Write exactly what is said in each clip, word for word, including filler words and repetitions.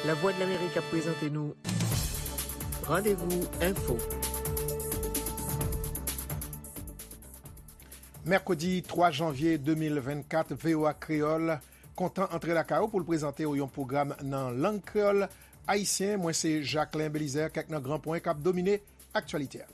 Lavwadlamerik ap prezante nou Randevou Enfo. Mèkredi twa janvye de mil vennkat, V O A Kreyòl kontan antre lakay ou pou l prezante w yon pwogram nan lang kreyòl ayisyen. Mwen se Jacquelin Belizaire, kèk nan gran pwen k ap domine aktyalite a.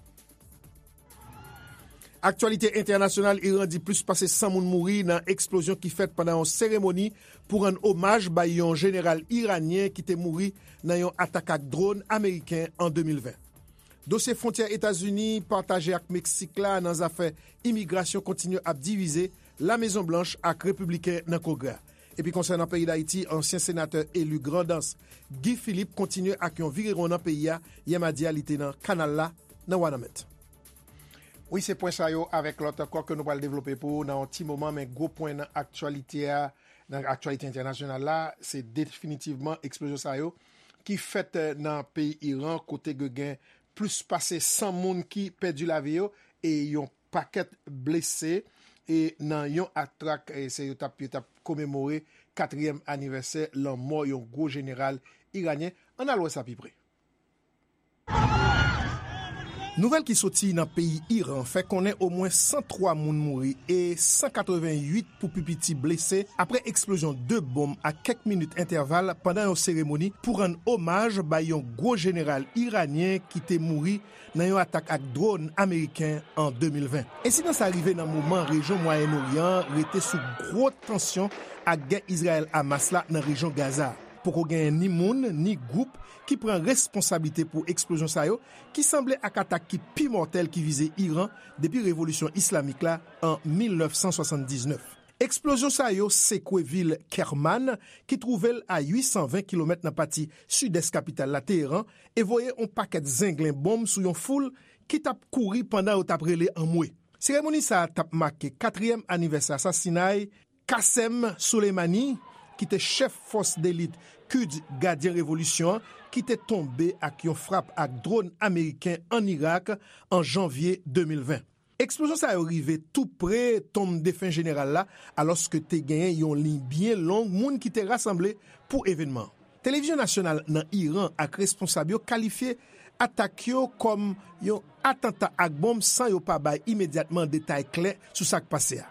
Aktyalite entènasyonal, Iran di plis pase san moun mouri nan eksplozyon ki fèt pandan yon seremoni pou rann omaj bay yon jeneral iranyen ki te mouri nan yon atak ak dwòn ameriken an de mil ven. Dosye fwontyè Etazini pataje ak Meksik la nan zafè imigrasyon kontinye ap divize Lamezon Blanch ak Repibliken nan Kongrè a. Epi konsènan peyi Dayiti, ansyen senatè eli Grandans, Guy Philippe, kontinye ak yon virewon nan peyi a. Yè madi a, li te nan kanal la, nan Wanament. Wi, se pwen sa yo avèk lòt ankò ke nou pral devlope pou ou nan yon ti moman, men gwo pwen nan aktyalite a, nan aktyalite entènasyonal la, se definitivman eksplozyon sa yo ki fèt, eh, nan peyi Iran, kote ke gen plis pase san moun ki pèdi lavi yo e yon pakèt blese, e nan yon atak, e se yo t ap, yo t ap komemore katriyèm anivèsè lanmò yon gwo jeneral iranyen. Ann al wè sa pi pre. Nouvèl ki soti nan peyi Iran fè konnen omwen san twa moun mouri e san katrevenn uit pou pi piti blese apre eksplozyon de bonm ak kèk minit entèval pandan yon seremoni pou rann omaj bay yon gwo jeneral iranyen ki te mouri nan yon atak ak dwòn ameriken an de mil ven. Ensidan sa rive nan moman rejyon Mwayen Oryan an rete sou gwo tansyon ak gè Izrayèl-Hamas la nan rejyon Gaza. Poko genyen ni moun, ni gwoup ki pran responsablite pou eksplozyon sa yo, ki sanble ak atak ki pi mòtèl ki vize Iran depi revolisyon islamik la an mil nèf san swasanndiznèf. Eksplozyon sa yo sekwe vil Kerman, ki twouve l a uit san ven kilomèt nan pati sidès kapital la, Teheran, e voye yon pakèt zenglen bonm sou yon foul ki t ap kouri pandan yo t ap rele anmwe. Seremoni sa a t ap make katriyèm anivèsè asasinay Qasem Soleimani, ki te chèf fòs delit Quds Gadyen Revolisyon an, ki te tonbe ak yon frap ak dwòn ameriken ann Irak an janvye de mil ven. Eksplozyon sa yo rive tou pre tonm defen jeneral la, alòske te genyen yon liy byen long moun ki te rasanble pou evènman an. Televizyon nasyonal nan Iran ak responsab yo kalifye atak yo kòm yon atanta ak bonm san yo pa bay imedyatman detay klè sou sa k pase a.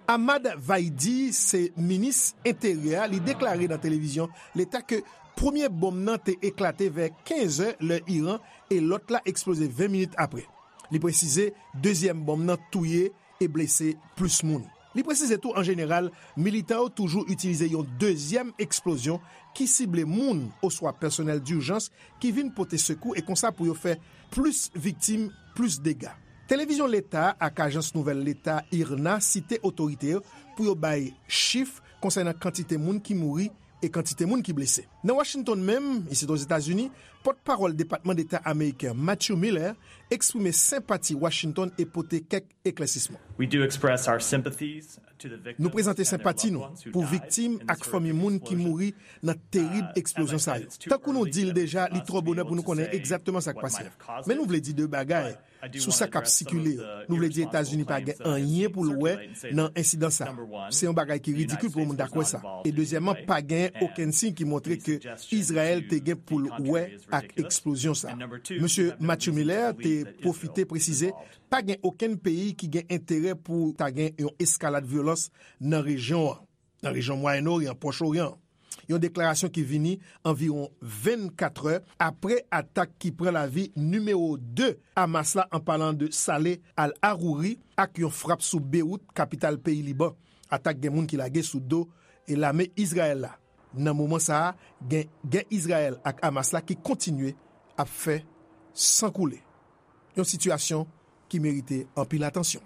Ahmad Vaidi se minis enteryè a, li deklare nan televizyon leta ke premye bonm nan te eklate vè kenz è lè Iran e lòt la eksploze ven minit apre. Li presize dezyèm bonm nan touye e blese plis moun. Li presize tou, an jeneral, militan yo toujou itilize yon dezyèm eksplozyon ki sible moun oswa pèsonèl dijans ki vin pote sekou e konsa pou yo fè plis viktim, plis dega. Televizyon leta ak ajans nouvèl leta IRNA site otorite yo pou yo bay chif konsènan kantite moun ki mouri e kantite moun ki blese. Nan Washington menm, isit Ozetazini, pòtpawòl Depatman Deta ameriken Matthew Miller eksprime senpati Washington e pote kèk eklèsisman. We do express our sympathies to the victims. Nou prezante senpati nou pou viktim ak fanmi moun ki mouri nan terib eksplozyon sa yo. Tankou nou di l deja, li twò bonè pou nou konnen egzakteman sa k pase a. Men nou vle di de bagay sou sa k ap sikile yo. Nou vle di Etazini pa gen anyen pou l wè nan ensidan sa a. Se yon bagay ki ridikil pou yon moun ta kwè sa. E dezyèmman, pa gen okenn siy ki montre ke Izrayèl te gen pou l wè ak eksplozyon sa a. Mesye Matthew Miller te pwofite presize pa gen okenn peyi ki gen enterè pou ta gen yon eskalad vyolans nan rejyon an, nan rejyon Mwayen Oryan, Pwòch Oryan. Yon deklarasyon ki vini anviwon vennkat è apre atak ki pran lavi nimewo de Hamas la, an palan de Saleh al-Arouri, ak yon frap sou Bewout, kapital peyi Liban. Atak gen moun ki lage sou do e lame Izrayèl la. Nan moman sa a, gen gè Izrayèl ak Hamas la ki kontinye ap fè san koule. Yon sitiyasyon ki merite anpil atansyon.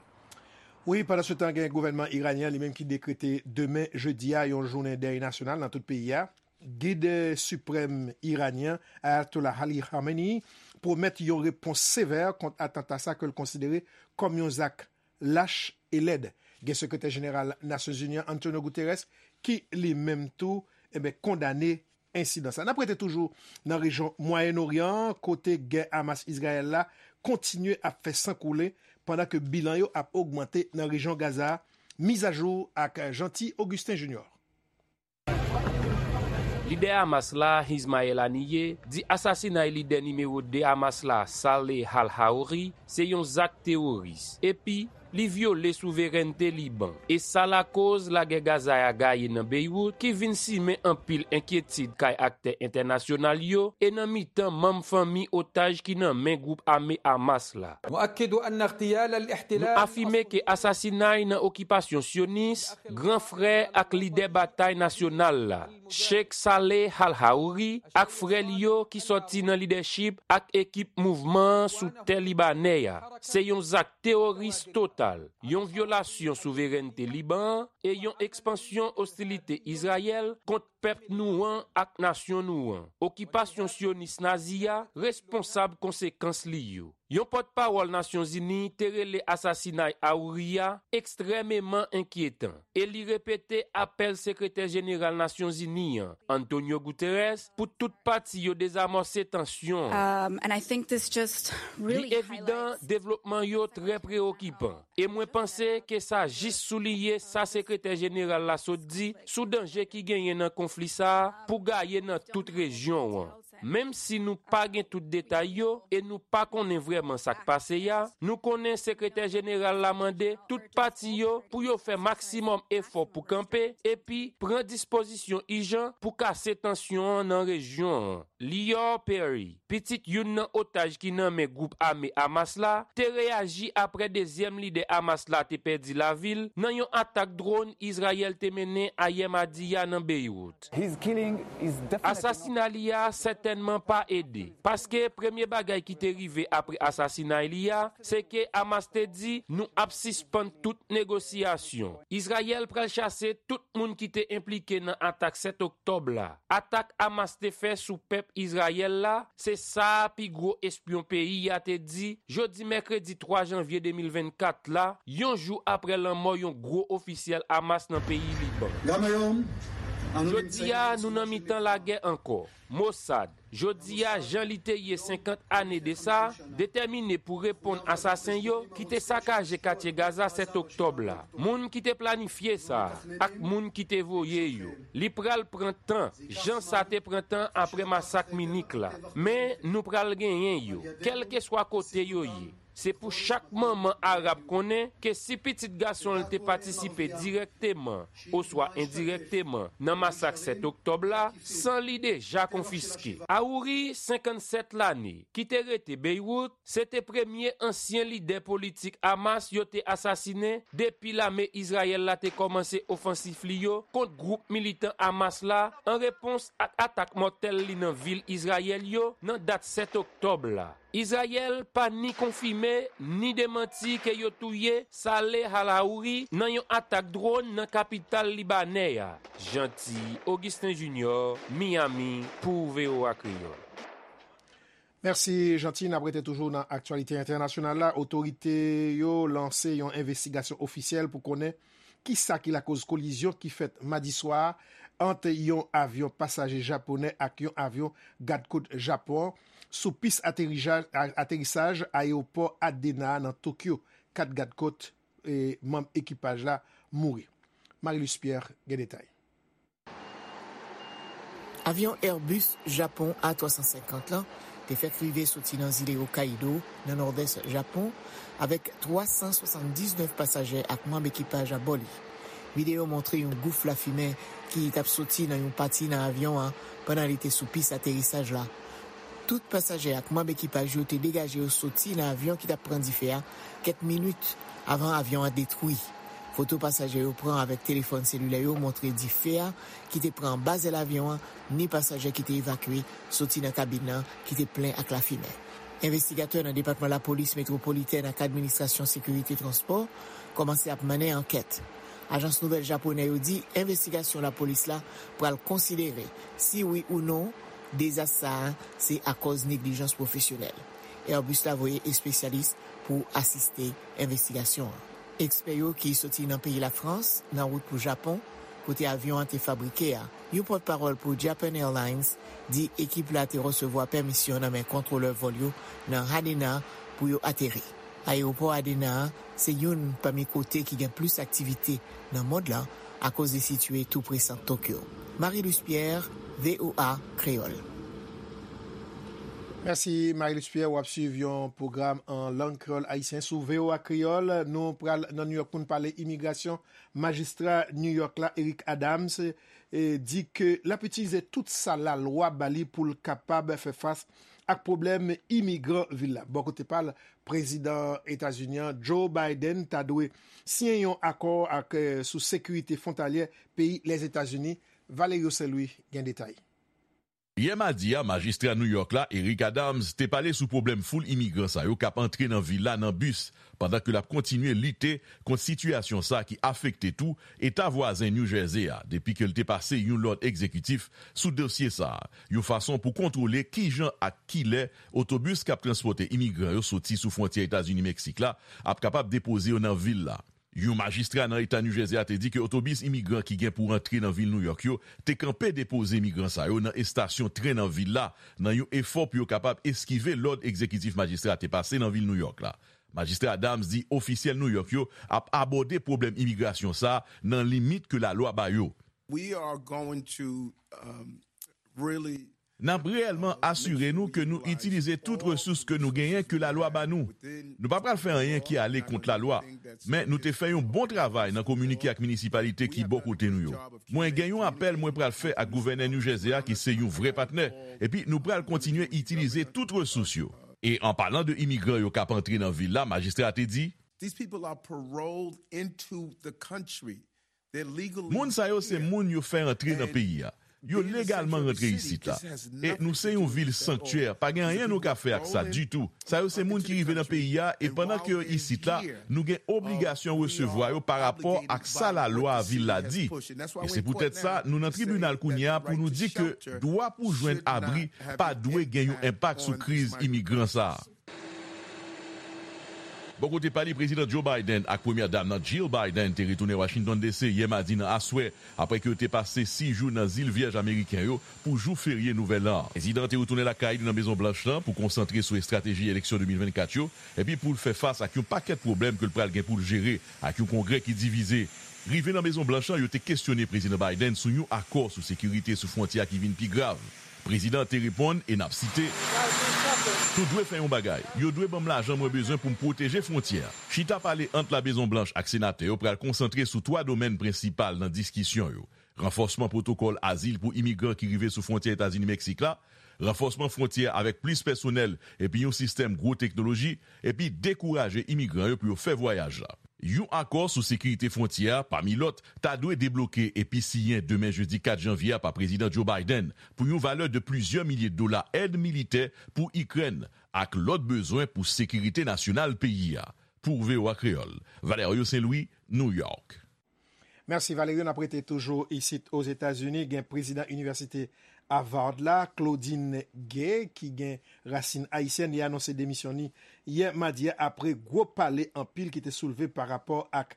Wi, pandansetan, gen gouvènman iranyen an li menm ki dekrete demen, jedi a, yon jounen dèy nasyonal nan tout peyi a. Gid siprèm iranyen, Ayatollah Ali Khamenei, pwomèt yon repons sevè kont atanta sa ke l konsidere kòm yon zak lach e lèd. Gen Sekretè Jeneral Nasyonzini an, Antonio Guterres, ki li menm tou, enben, kondane ensidan sa. N ap rete toujou nan rejyon Mwayen Oryan an, kote gè Hamas-Izrayèl la kontinye ap fè san koule, pandan ke bilan yo ap ogmante nan rejyon Gaza a. Mizajou ak Jeanty Augustin Junior. Lidè Hamas la, Ismail Haniyeh, di asasinay lidè nimewo de Hamas la, Saleh al-Haouri, se yon zak teworis, epi li vyole souverènte Liban. E sa lakoz lagè Gaza a gaye nan Beywout, ki vin simen anpil enkyetid kay aktè entènasyonal yo e nan mitan manm fanmi otaj ki nan men gwoup ame Hamas la. Nou afime ke asasinay nan okipasyon syonis, gran frè ak lidè batay nasyonal la, Sheikh Saleh al-Haouri, ak frè li yo ki sòti nan lidèchip ak ekip mouvman an sou tè libanè a, se yon zak teworis total, yon vyolasyon souverènte Liban an e yon ekspansyon ostilite Izrayèl kont pèp nou an ak nasyon nou an. Okipasyon syonis nazi a responsab konsekans li yo. Yon pòtpawòl Nasyonzini te rele asasinay Haouri a ekstrèmeman enkyetan e li repete apèl Sekretè Jeneral Nasyonzini an, Antonio Guterres, pou tout pati yo dezamòse tansyon an. Li evidan, devlopman yo trè preokipan, e mwen panse ke sa jis souliye sa Sekretè Jeneral la sot di sou danje ki genyen nan konfli sa a pou gaye nan tout rejyon an. Menm si nou pa gen tout detay yo e nou pa konnen vrèman sa k pase a, nou konnen Sekretè Jeneral la mande tout pati yo pou yo fè maksimòm efò pou kanpe epi pran dispozisyon ijan pou kase tansyon an nan rejyon an. Lior Perry, pitit youn nan otaj ki nan men gwoup ame Hamas la, te reyaji apre dezyèm lidè Hamas la te pèdi lavi l nan yon atak dwòn Izrayèl te mennen ayè madi a nan Beywout. Asasina li a sètènman pa ede, paske premye bagay ki te rive apre asasinay li a, se ke Hamas te di, nou ap sispann tout negosyasyon. Izrayèl pral chase tout moun ki te enplike nan atak sèt oktòb la. Atak Hamas te fè sou pèp Izrayèl la, se sa pi gwo espyon peyi a te di jodi mèkredi twa janvye de mil vennkat la, yon jou apre lanmò yon gwo ofisyèl Hamas nan peyi Liban. Jodi a, nou nan mitan lagè ankò. Mossad, jodi a, jan li te ye senkant ane de sa, detèmine pou reponn asasen yo ki te sakaje katye Gaza sèt oktòb la, moun ki te planifye sa, ak moun ki te voye yo. Li pral pran tan, jan sa te pran tan apre masak Minik la. Men, nou pral genyen yo, kèlkeswa kote yo ye. Se pou chak manman arab konnen ke si pitit gason l te patisipe dirèkteman oswa endirèkteman nan masak sèt oktòb la, san li deja konfiske. Haouri, senkannsèt lane, ki te rete Beywout, se te premye ansyen lidè politik Hamas yo te asasinen depi lame Izrayèl la te kòmanse ofansif li yo kont gwoup militan Hamas la, an repons ak atak mòtèl li nan vil Izrayèl yo nan dat sèt oktòb la. Izrayèl pa ni konfime ni demanti ke yo touye Saleh al-Haouri nan yon atak dwòn nan kapital libanè a. Jeanty Augustin Junior, Miami, pou V O A Kreyòl. Mèsi, Jeanty. N ap rete toujou nan aktyalite entènasyonal la. Otorite yo lanse yon envestigasyon ofisyèl pou konnen kisa ki lakoz kolizyon ki fèt madi swa a ant yon avyon pasaje japonè ak yon avyon gadkòt Japon an sou pis aterija-, a-, aterisaj ayewopò Adena a nan Tokyo. Kat gadkòt, e, manm ekipaj la mouri. Marilus Pierre gen detay. Avyon Airbus Japon A twa san senkant lan te fèk rive soti nan zile Hokkaido, nan nòdès Japon, avèk twa san swasanndiznèf pasaje ak manm ekipaj abò li. Videyo montre yon gouf lafimen ki t ap soti nan yon pati nan avyon an pandan li te sou pis aterisaj la. Tout pasaje ak manm ekipaj yo te degaje yo soti nan avyon ki t ap pran dife a kèk minit avan avyon an detwi. Foto pasaje yo pran avèk telefòn selilè yo montre dife a ki te pran anba zèl avyon an, ni pasaje ki te evakye soti nan kabin nan ki te plen ak lafimen. Envestigatè nan Depatman Lapolis Metwopolitèn ak Administrasyon Sekirite Transpò kòmanse ap mennen ankèt. Ajans nouvèl japonè yo di envestigasyon lapolis la pral konsidere si wi ou non dezas sa a se akòz neglijans pwofesyonèl. Airbus la voye espesyalis pou asiste envestigasyon an. Ekspè yo ki soti nan peyi Lafrans nan wout pou Japon, kote avyon an te fabrike a. Yon pòtpawòl pou Japan Airlines di ekip la te resevwa pèmisyon nan men kontwolè vòl yo nan Haneda pou yo ateri. Ayewopò Haneda a se youn pami kote ki gen plis aktivite nan mond lan akoz li sitiye tou pre Sant Tokyo. Marie-Luce Pierre, V O A Kreyòl. Mèsi, Marie-Luce Pierre. W ap swiv yon pwogram an lang kreyòl ayisyen sou V O A Kreyòl. Nou pral nan New York pou n pale imigrasyon. Majistra New York la, Eric Adams, e, di ke l ap itilize tout sa lalwa ba li pou l kapab fè fas ak pwoblèm imigran vil la. Bò kote pa l, prezidan Etazini an, Joe Biden, ta dwe siyen yon akò ak, e, sou sekirite fwontalyè peyi Lèzetazini. Valerio Saint-Louis gen detay. Yè madi a, majistra New York la, Eric Adams, te pale sou pwoblèm foul imigran sa yo k ap antre nan vil la nan bis, pandan ke l ap kontinye lite kont sitiyasyon sa ki afekte tou eta vwazen New Jersey a, depi ke l te pase yon lòd egzekitif sou dosye sa a, yon fason pou kontwole kijan ak kilè otobis k ap transpòte imigran yo soti sou fwontyè Etazini-Meksik la ap kapab depoze yo nan vil la. Yon majistra nan eta New Jersey a te di ke otobis imigran ki gen pou rantre nan vil New York yo te kanpe depoze imigran sa yo nan estasyon tren nan vil la, nan yon efò pou yo kapab eskive lòd egzekitif majistra a te pase nan vil New York la. Majistra Adams di ofisyèl New York yo ap abòde pwoblèm imigrasyon sa a nan limit ke lalwa ba yo. We are going to um, really N ap reyèlman asire nou ke nou itilize tout resous ke nou genyen ke lalwa ba nou. Nou pa pral fè anyen ki ale kont lalwa, men nou te fè yon bon travay nan kominike ak minisipalite ki bò kote nou yo. Mwen gen yon apèl mwen pral fè ak gouvènè New Jersey a ki se yon vrè patnè, epi nou pral kontinye itilize tout resous yo. E an palan de imigran yo k ap antre nan vil la, majistra a te di, These people are paroled into the country. They're legally Moun sa yo se here. Moun yo fè antre nan peyi a. Yo legalman rantre isit la. E nou se yon vil sanktyè, pa gen anyen nou ka fè ak sa ditou. Sa yo se moun ki rive nan peyi a, e pandan ke yo isit la, nou gen obligasyon resevwa yo pa rapò ak sa lalwa vil la di. E se poutèt sa, nou nan tribinal kounye a pou nou di ke dwa pou jwenn abri pa dwe gen yon enpak sou kriz imigran sa a. Bò kote pa li, Prezidan Joe Biden ak Premyè Dam nan Jill Biden te retounen Washington D C yè madi nan aswè, apre ke yo te pase sis jou nan Zil Vyèj Ameriken yo pou jou ferye Nouvèl An. Prezidan an te retounen lakay li nan Mezon Blanch lan pou konsantre sou estrateji eleksyon de mil vennkat yo, epi pou l fè fas ak yon pakèt pwoblèm ke l pral gen pou l jere ak yon Kongrè ki divize. Rive nan Mezon Blanch lan, yo te kesyone Prezidan Biden sou yon akò sou sekirite sou fwontyè a ki vin pi grav. Prezidan an te reponn, e n ap site, Nou dwe fè yon bagay. Yo dwe ban m lajan mwen bezwen pou m pwoteje fwontyè a. Chita pale ant La Mezon Blanch ak senatè yo pral konsantre sou twa domèn prensipal nan diskisyon yo: ranfòsman pwotokòl azil pou imigran ki rive sou fwontyè Etazini-Meksik la, ranfòsman fwontyè avèk plis pèsonèl epi yon sistèm gwo teknoloji, epi dekouraje imigran yo pou yo fè vwayaj la. Yon akò sou sekirite fwontyè a, pami lòt, ta dwe debloke epi siyen demen jedi kat janvye a pa Prezidan Joe Biden pou yon valè de plizyè milye dola èd militè pou Ikrèn ak lòt bezwen pou sekirite nasyonal peyi a. Pou V O A Kreyòl, Valerio Saint-Louis, New York. Mèsi Valerio, n ap rete toujou isit Ozetazini. Gen prezidan inivèsite Harvard la, Claudine Gay, ki gen rasin ayisyèn, li anonse demisyon li yè madi a apre gwo pale anpil ki te soulve pa rapò ak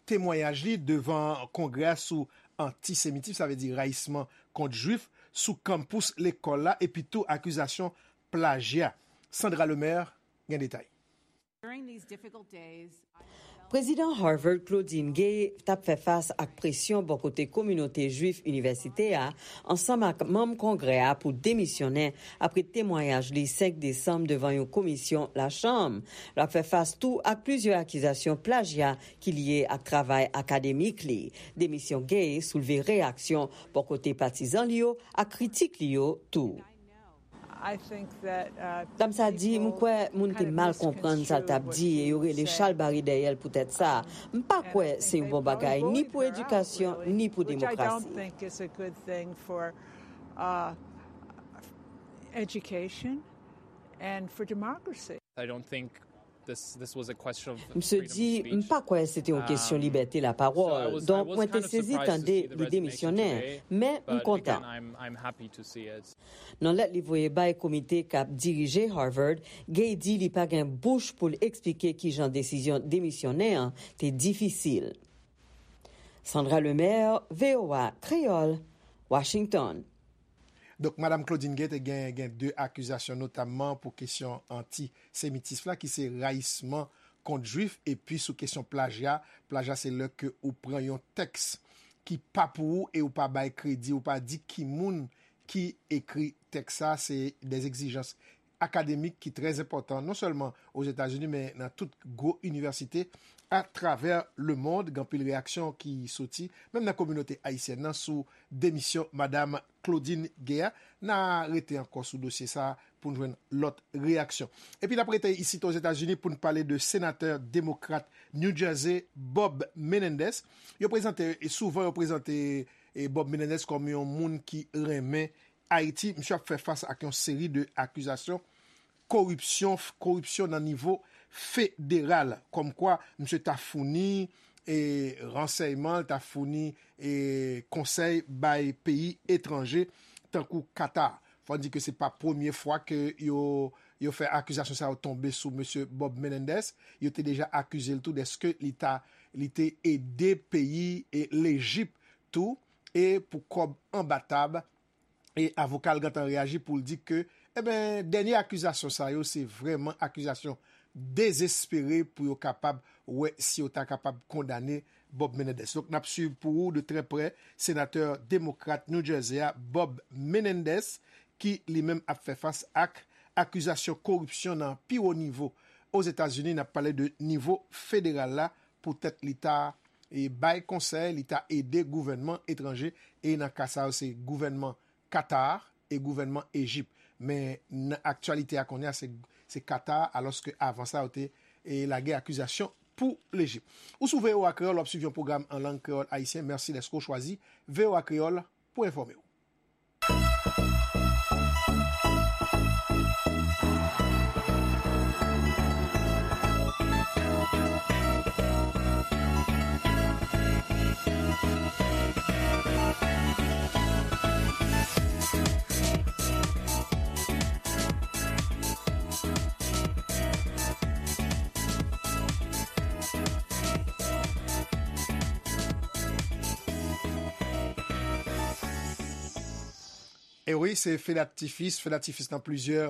temwayaj li devan Kongrè a sou antisemitis, sa vle di rayisman kont Jwif, sou kanpous lekòl la, epi tou akizasyon plajya. Sandra Lemaire gen detay. Prezidan Harvard Claudine Gay t ap fè fas ak presyon bò kote kominote Jwif inivèsite a ansanm ak manm Kongrè a pou demisyonnen apre temwayaj li senk desanm devan yon komisyon Lachanm. L ap fè fas tou ak plizyè akizasyon plajya ki lye ak travay akademik li. Demisyon Gay soulve reyaksyon bò kote patizan li yo ak kritik li yo tou. Dam sa di, m kwè moun te mal konprann sa l t ap di e yo rele chalbari dèyè l poutèt sa. M pa kwè se yon bon bagay ni pou edikasyon ni pou demokrasi. Education and for democracy. I don't think this this was a question of Misye di, m pa kwè se te yon kesyon libète lapawòl. Donk, mwen te sezi tande li demisyonnen, men m kontan. I'm I'm happy to see it. Nan lèt li voye bay komite k ap dirije Harvard, Gay di li pa gen bouch pou l eksplike kijan desizyon demisyonnen an te difisil. Sandra Lemaire, V O A Kreyòl, Washington. Donk, Madanm Claudine Gay te gen, gen de akizasyon, notamman pou kesyon antisemitis la, ki se rayisman kont Jwif, epi sou kesyon plajya. Plajya, se lè ke ou pran yon tèks ki pa pou ou e ou pa bay kredi, ou pa di ki moun ki ekri tèks sa, se de egzijans akademik ki trè enpòtan, non sèlman Ozetazini, men nan tout gwo inivèsite atravè lemonn. Gen anpil reyaksyon ki soti, menm nan kominote ayisyèn nan, sou demisyon Madam Claudine Gay a. N a rete ankò sou dosye sa a pou n jwenn lòt reyaksyon. Epi n ap rete isit Ozetazini pou n pale de senatè demokrat New Jersey, Bob Menendez. Yo prezante, e souvan yo prezante, e Bob Menendez kòm yon moun ki renmen Ayiti. Misye ap fè fas ak yon seri de akizasyon koripsyon, koripsyon nan nivo federal, kòmkwa misye ta founi, e, ransèyman, ta founi, e, konsèy bay peyi etranje, tankou Qatar. Fò n di ke se pa premye fwa ke yo, yo fè akizasyon sa yo tonbe sou mesye Bob Menendez. Yo te deja akize l tou dèske li ta, li te ede peyi, e, Lejip tou, e pou kòb anba tab, e avoka l gentan reyaji pou l di ke, eben, dènye akizasyon sa yo, se vrèman akizasyon dezespere pou yo kapab wè si yo ta kapab kondane Bob Menendez. Donk, n ap swiv pou ou de trè prè senatè demokrat New Jersey a, Bob Menendez, ki li menm ap fè fas ak akizasyon koripsyon nan pi wo nivo Ozetazini. N ap pale de nivo federal la, poutèt li ta, e, bay konsèy, li ta ede gouvènman etranje, e nan ka sa yo, se gouvènman Qatar e gouvènman Ejip. Men nan aktyalite a kounye a, se, se Qatar, alòske avan sa, yo te, e, lage akizasyon pou Lejip. Ou sou V O A Kreyòl, w ap swiv yon pwogram an lang kreyòl ayisyen. Mèsi dèske w chwazi V O A Kreyòl pou enfòme w. E wi, se fedatifis, fedatifis nan plizyè,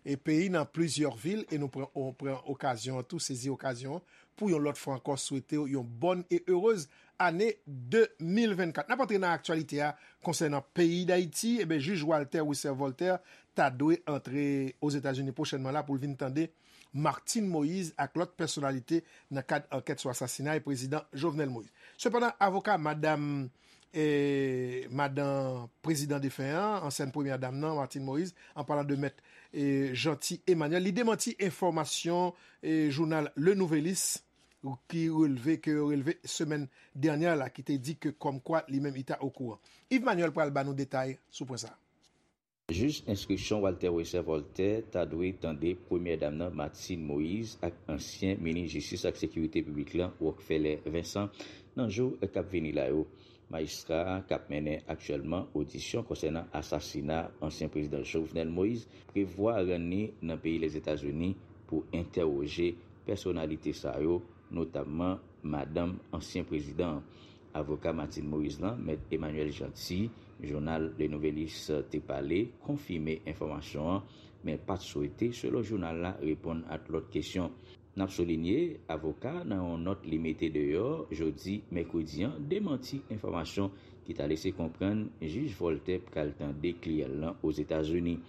e, peyi, nan plizyè vil, e nou pran, on pran okazyon an tou, sezi okazyon an, pou yon lòt fwa ankò swete w yon bòn e erez ane de mil vennkat. N ap antre nan aktyalite a konsènan peyi Dayiti. Eben, jij Walter Wesser Voltaire ta dwe antre Ozetazini pwochènman la pou l vin tande Martine Moïse ak lòt pèsonalite nan kad ankèt sou asasinay prezidan Jovenel Moïse. Sepandan, avoka madanm, e, madanm prezidan defen an, ansyèn premyè dam nan, Martine Moïse, an palan de mèt, e, Jeanty Emmanuel, li demanti enfòmasyon, e, jounal Le Nouvelliste ki relve, ke yo relve semèn dènyè la, ki te di ke kòmkwa li menm li ta okouran. Yves Manuel pral ba nou detay sou pwen sa a. Jij enstriksyon Walter Wesser Voltaire ta dwe tande premyè dam nan, Martine Moïse, ak ansyen minis jistis ak sekirite piblik lan, Rockfeller Vincent, nan jou k ap vini la yo. Majistra a k ap mennen aktyèlman odisyon konsènan asasina ansyen prezidan Jovenel Moïse prevwa rann li nan peyi Lèzetazini pou entèwoje pèsonalite sa yo, notamman madanm ansyen prezidan an. Avoka Martine Moïse lan, Mèt Emmanuel Jeanty, jounal Le Nouvelliste te pale, konfime enfòmasyon an, men pa t swete, selon jounal la, reponn ak lòt kesyon. N ap soulinye, avoka a, nan yon nòt li mete deyò jodi mèkredi an, demanti enfòmasyon ki ta lese konprann jij Voltaire pral tande kliyan l lan Ozetazini.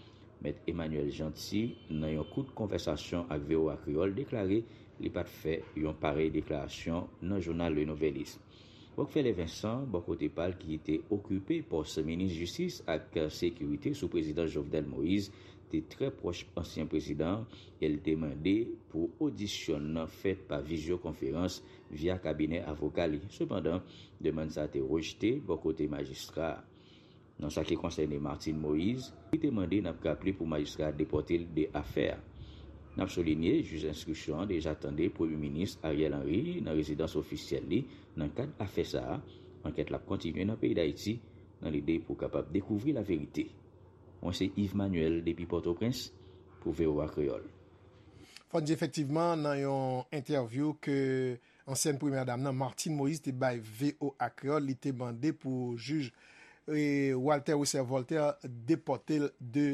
Mèt Emmanuel Jeanty, nan yon kout konvèsasyon ak V O A Kreyòl, deklare li pa t fè yon parèy deklarasyon nan jounal Le Nouvelliste. Rockfeller Vincent, bò kote pa l, ki te okipe pòs minis jistis ak sekirite sou prezidan Jovenel Moïse, te trè pwòch ansyen prezidan an, e l te mande pou odisyon nan fèt pa vizyokonferans via kabinè avoka li. Sepandan, demann sa a te rejte bò kote majistra a. Nan sa ki konsène Martine Moïse, li te mande, n ap raple, pou majistra a depòte l de afè a. N ap soulinye, jij enstriksyon an deja tande Premye Minis Ariel Henry nan rezidans ofisyèl li nan kad afè sa a. Ankèt la ap kontinye nan peyi Dayiti nan lide pou kapab dekouvri laverite. Mwen se Yves Manuel depi Pòtoprens pou V O A Kreyòl. Fò n di efektivman, nan yon entèvyou ke ansyèn premyè dam nan, Martine Moïse, te bay V O A Kreyòl, li te mande pou jij, e, Walter Wesser Voltaire depòte l de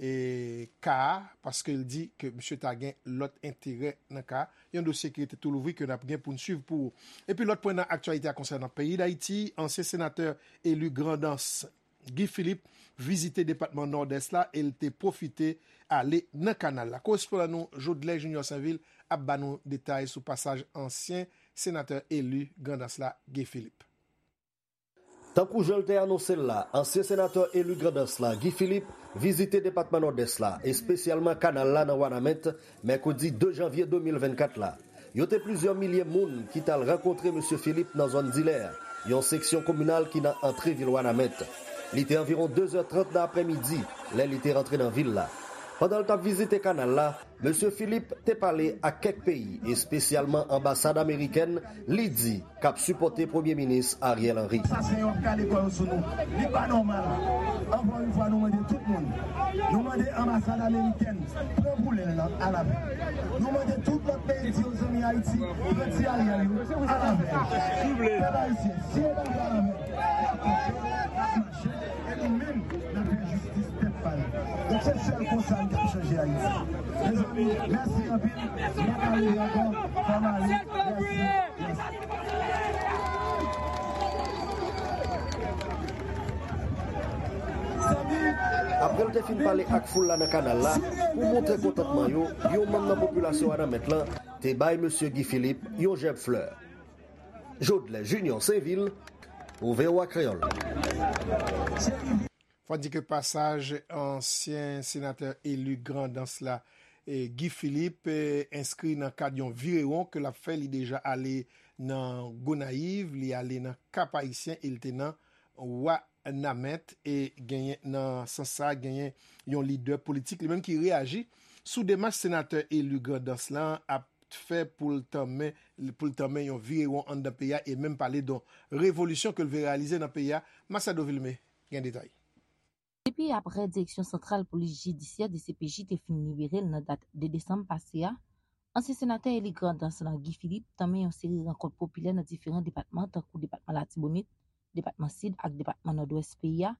e, ka a, paske l di ke misye ta gen lòt enterè nan ka a. Yon dosye ki rete tou louvri ke n ap gen pou n swiv pou ou. Epi lòt pwen nan aktyalite a konsènan peyi Dayiti, ansyen senatè eli Grandans Guy Philippe vizite depatman Nòdès la e l te pwofite ale nan kanal la. Korespondan nou Jodlè Junior Sainvil ap ba nou detay sou pasaj ansyen senatè eli Grandans la, Guy Philippe. Tankou jan l te anonse l la, ansyen senatè eli Grandans la, Guy Philippe, vizite depatman Nòdès la, espesyalman kanal la nan Wanament, mèkredi de janvye de mil vennkat la. Yo te plizyè milye moun ki t al rankontre mesye Philippe nan zòn Dilè, yon seksyon kominal ki nan antre vil Wanament. Li te anviwon de zè trant nan aprèmidi lè li te rantre nan vil la. Pandan l t ap vizite kanal la, mesye Philippe te pale ak kèk peyi, espesyalman anbasad amerikèn, li di, k ap sipòte Premye Minis Ariel Henry. Sa se yon ka lekòl sou nou. Li pa nòmal. Ankò yon fwa, nou mande tout moun. Nou mande anbasad amerikèn pran boulèl nan alavè. Nou mande tout lòt peyi di yo zanmi Ayiti, pran ti Ariel yo alavè. Pèp ayisyen, si yo pa vle alavè, n ap kanpe, n ap mache, e nou menm, n ap fè jistis tèt pa nou. Donk, se sèl konsa n ka chanje Ayiti. Mezanmi, mèsi anpil. M pa ka rele ankò. Fò m ale. Mèsi. Mèsi. Apre l te fin pale ak foul la nan kanal la, pou montre kontantman yo, yon manm nan popilasyon Wanament lan te bay mesye Guy Philippe yon jèb flè. Jodlè Junior Sainvil, pou V O A Kreyòl. Fò di ke pasaj ansyen senatè eli Grandans la, e, Guy Philippe, e, enskri nan kad yon virewon ke l ap fè. Li deja ale nan Gonayiv, li ale nan Kap Ayisyen e li te nan Wanament. E genyen, nan sans sa, genyen yon lidè politik li menm ki reyaji sou demach senatè eli Grandans lan ap fè pou l tanmen, pou l tanmen yon virewon anndan peyi a e menm pale de yon revolisyon ke l vle reyalize nan peyi a. Masiado Vilmé gen detay. Depi aprè Direksyon Santral Polis Jidisyè, D C P J, te fin libere l nan dat de desanm pase a, ansyen senatè eli Grandans lan, Guy Philippe, tanmen yon seri rankont popilè nan diferan depatman, tankou depatman Latibonit, depatman Sid ak depatman Nòdwès peyi a,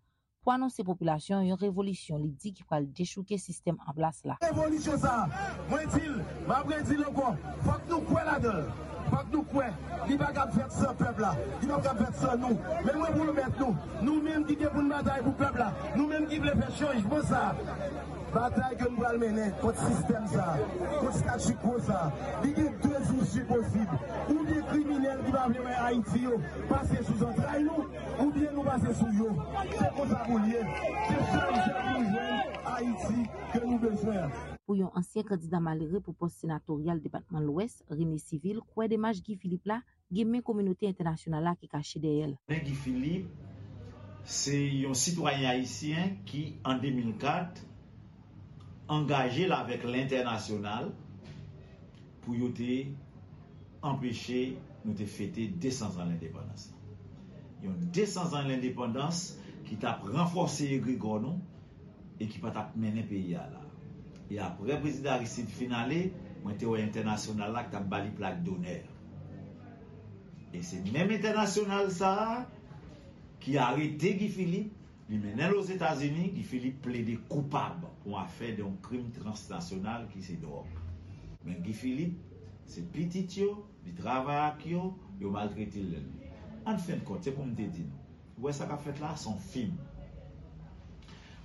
pou anonse popilasyon an yon revolisyon li di ki pral dechouke sistèm an plas la. Revolisyon sa a, mwen di l, m ap redi l ankò, fòk nou kwè ladan l. Fòk nou kwè, li pa kab fèt san pèp la, li pa kab fèt san nou. Men mwen pwomèt nou, nou menm ki gen pou n batay pou pèp la, nou menm ki vle fè chanjman sa a, batay ke n pral mennen kont sistèm sa a, kont statu quo sa a, li gen de isi posib. Oubyen kriminèl ki pa vle wè Ayiti yo pase sou zantray nou, oubyen nou pase sou yo. Se konsa pou l ye. Se sèl jèn nou jwenn Ayiti ke nou bezwen an. Pou yon ansyen kandida malere pou pòs senatoryal depatman Lwès, René Civil, kwè demach Guy Philippe la gen men kominote entènasyonal la ki kache dèyè l. Men Guy Philippe, se yon sitwayen ayisyen ki, an de mil kat, angaje l avèk lentènasyonal pou yo te anpeche nou te fete de san zan lendepandans lan. Yon de san zan lendepandans ki t ap ranfòse egregò nou e ki pa t ap mennen peyi a la. E aprè Prezidan Aristide fin ale, mwen te wè entènasyonal la ki t ap ba li plak donè. E se menm entènasyonal sa a ki arete Guy Philippe, li mennen l Ozetazini, Guy Philippe plede koupab pou afè de yon krim transnasyonal ki se dwòg. Men Guy Philippe, se pitit yo, li travay ak yo, yo maltrete l. An fen de kont, se pou m te di nou, ou wè sa k ap fèt la, se yon fim.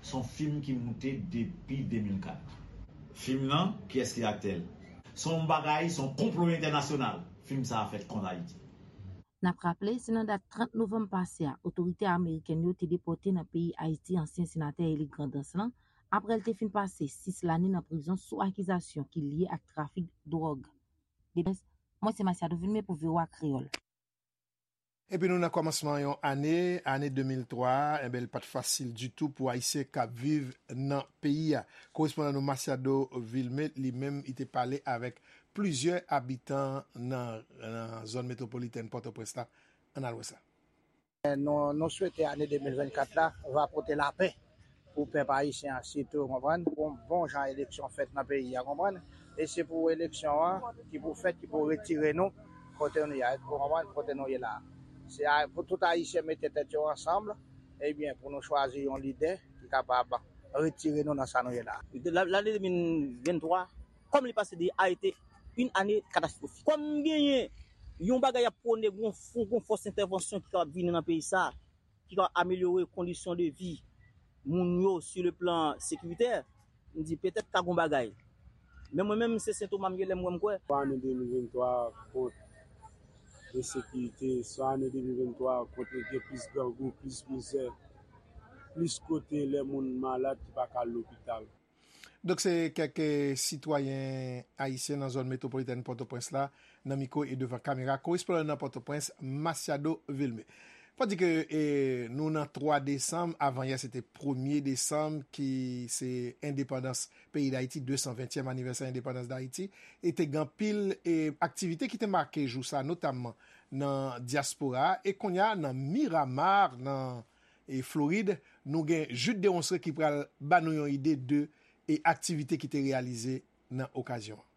Se yon fim ki moute depi de mil kat. Fim nan, kiyès ki aktè l? Se yon bagay, se yon konplo entènasyonal. Fim sa a fèt kont Ayiti. N ap raple, se nan dat trant novanm pase a, otorite amerikèn yo te depòte nan peyi Ayiti ansyen senatè eli Grandans lan, aprè l te fin pase sis lane nan prizon sou akizasyon ki lye ak trafik dwòg. Depi Lwès, mwen se Masiado Vilmé pou V O A Kreyòl. Epi nou nan kòmansman yon ane, ane de mil twa, enben, li pa t fasil ditou pou Ayisyen k ap viv nan peyi a. Korespondan nou Masiado Vilmé, li menm, li te pale avèk plizyè abitan nan, nan zòn metwopolitèn Pòtoprens la. Ann al wè sa. Nou, nou swete ane de mil vennkat la va pote lapè pou pèp ayisyen an sitou, konprann, pou bon jan eleksyon fèt nan peyi a, konprann. E se pou eleksyon an ki pou fèt, ki pou retire nou kote nou ye a, konprann, kote nou ye la. Se a, pou tout Ayisyen mete tèt yo ansanm, ebyen, pou nou chwazi yon lidè ki kapab retire nou nan sa nou ye la. Lane de mil venntwa, kòm li pase de a ete yon ane katastwofik. Kòm genyen yon bagay ap pwone, gon fon, gon fòs entèvansyon ki kapab vini nan peyi sa, ki ka amelyore kondisyon de vi moun yo sou le plan sekiritè, m di petèt ka gon bagay. Men mwen menm, se sentoma m ye, lè m wè m kwè. Swa ane de mil venntwa kont ensekirite, swa ane de mil venntwa kont gen plis grangou, plis mizè, plis kote lè moun malad ki pa ka al lopital. Donk, se kèk, eh, sitwayen ayisyen nan zòn metwopolitèn Pòtoprens la, nan mikwo e devan kamera korespondan nan Pòtoprens, Masiado Vilmé. Fò di ke, eh, nou nan twa desanm, avan yè se te premye desanm, ki se endepandans peyi Dayiti, de san ventyèm anivèsè endepandans Dayiti, e te gen anpil, eh, aktivite ki te make jou sa, notamman nan dyaspora a, e kounye a nan Miramar, nan e Florid, nou gen Jude Deronceray ki pral ba nou yon ide de e aktivite ki te reyalize nan okazyon an.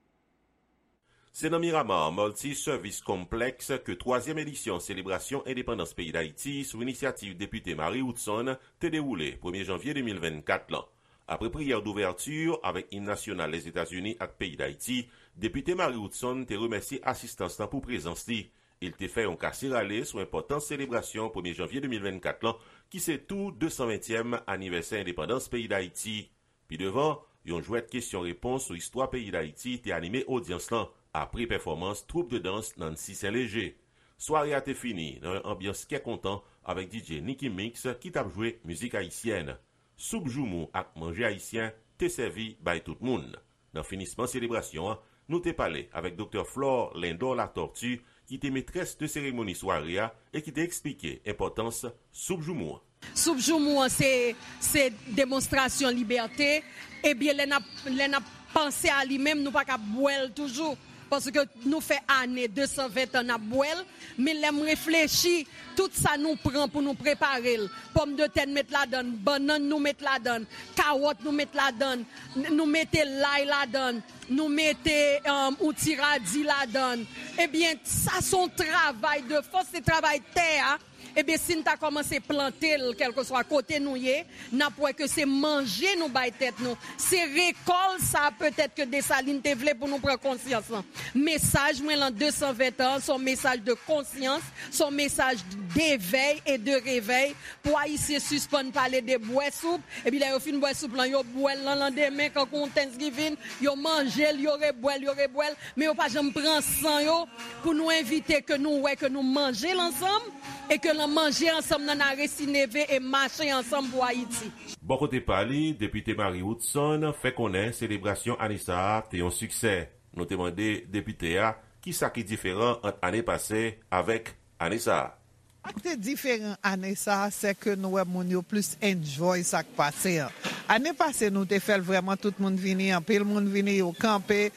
Se nan Miramar Multi Service Complex ke twazyèm edisyon selebrasyon endepandans peyi Dayiti sou inisyativ Depite Marie Woodson te dewoule premye janvye de mil vennkat lan. Apre priyè douvèti avèk im nasyonal Lèzetazini ak peyi Dayiti, Depite Marie Woodson te remèsye asistans lan pou prezans li. Li te fè yon kase rale sou enpòtans selebrasyon premye janvye de mil vennkat lan, ki se tou de san ventyèm anivèsè endepandans peyi Dayiti. Pi devan, yon jwèt kesyon repons sou istwa peyi Dayiti te anime odyans lan, apre pèfòmans twoup de dans Nancy Saint Léger. Sware a te fini nan yon anbyans kè kontan avèk D J Nicky Mix ki t ap jwe mizik ayisyèn. Soup joumou ak manje ayisyen te sèvi bay tout moun. Nan finisman selebrasyon an, nou te pale avèk Doktè Flore Lindor Latortue, ki te metrès de seremoni sware a e ki te eksplike enpòtans soup joumou an. Soup joumou an se, se demonstrasyon libète. Ebyen, lè n ap, lè n ap panse a li menm, nou pa ka bwè l toujou. Paske nou fè ane, de san ven tan n ap bwè l. Men lè m reflechi, tout sa nou pran pou nou prepare l, pòmdetè n met ladan l, bannann nou met ladan l, kawòt nou met ladan l, n-, nou mete lay ladan l, nou mete, um, yon ti radi ladan l. Ebyen, sa se yon travay de fòs, se travay tè a. Ebyen, si n ta kòmanse plante l, kèlkeswa kote nou ye, n ap wè ke se manje nou bay tèt nou. Se rekòl sa a petèt ke Desalin te vle pou nou pran konsyans lan. Mesaj mwen lan de san ven tan an, se yon mesaj de konsyans, se yon mesaj devèy e de revèy pou Ayisyen sispann pale de bwè soup, epi lè yo fin bwè soup lan, yo bwè l lan landemen, kankou yon Thanksgiving, yo manje l, yo rebwè l, yo rebwè l, men yo pa janm pran san yo pou nou envite ke nou wè ke nou manje l ansanm, e ke lan manje ansanm nan n a resi neve e mache ansanm pou Ayiti. Bò kote pa li, Depite Marie Woodson fè konnen selebrasyon ane sa a te yon siksè. Nou te mande depite a kisa ki diferan ant ane pase avèk ane sa a. Sa k te diferan ane sa a, se ke nou wè moun yo plis enjoy sa k pase an. Ane pase, nou te fè l vrèman, tout moun vini, anpil moun vini, yo kanpe,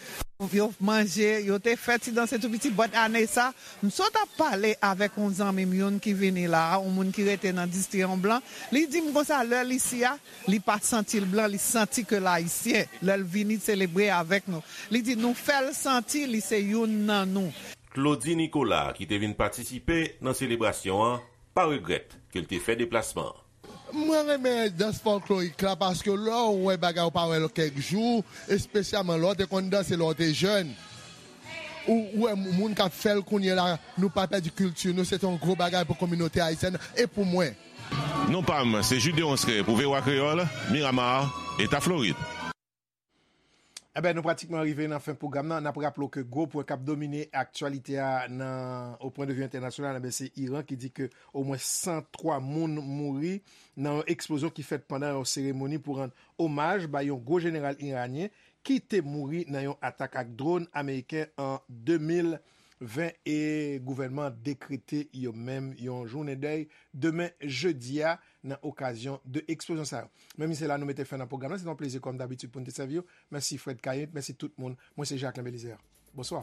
yo manje, yo te fè ti danse tou piti. But ane sa, m sot ap pale avèk yon zanmi m youn ki vini la a, yon moun ki rete nan distri an blan, li di m konsa, lè l isi a, li pa santi l blan, li santi ke l ayisyen. Lè l vini selebre avèk nou, li di nou fè l santi li se youn nan nou. Claudy Nicolas, ki te vin patisipe nan selebrasyon an, pa regrèt ke l te fè deplasman an. Mwen renmen dans fòklorik la paske lè w wè bagay ou pa wè l kèk jou, espesyalman lè w te konn danse lè w te jèn, ou, ou wè moun k ap fè l kounye a la, nou pa pèdi kilti nou, se te yon gwo bagay pou kominote ayisyèn e pou mwen. Non pa m, se Jude Deronceray pou V O A Kreyòl, Miramar, Eta Florid. Enben, nou pratikman rive nan fen pwogram nan. N ap raple w ke gwo pwen k ap domine aktyalite a nan, au point de vue international, enben, se Iran ki di ke omwen san twa moun mouri nan yon eksplozyon ki fèt pandan yon seremoni pou rann omaj bay yon gwo jeneral iranyen ki te mouri nan yon atak ak dwòn ameriken an de mil ven, e gouvènman an dekrete yo menm yon jounen dèy demen jedi a nan okazyon de eksplozyon sa yo. Men se la nou mete fen nan pwogram nan. Se te yon plezi kòm dabitid pou n te sèvi w. Mèsi Fred Kayent, mèsi tout moun. Mwen se Jacquelin Belizaire. Bonswa.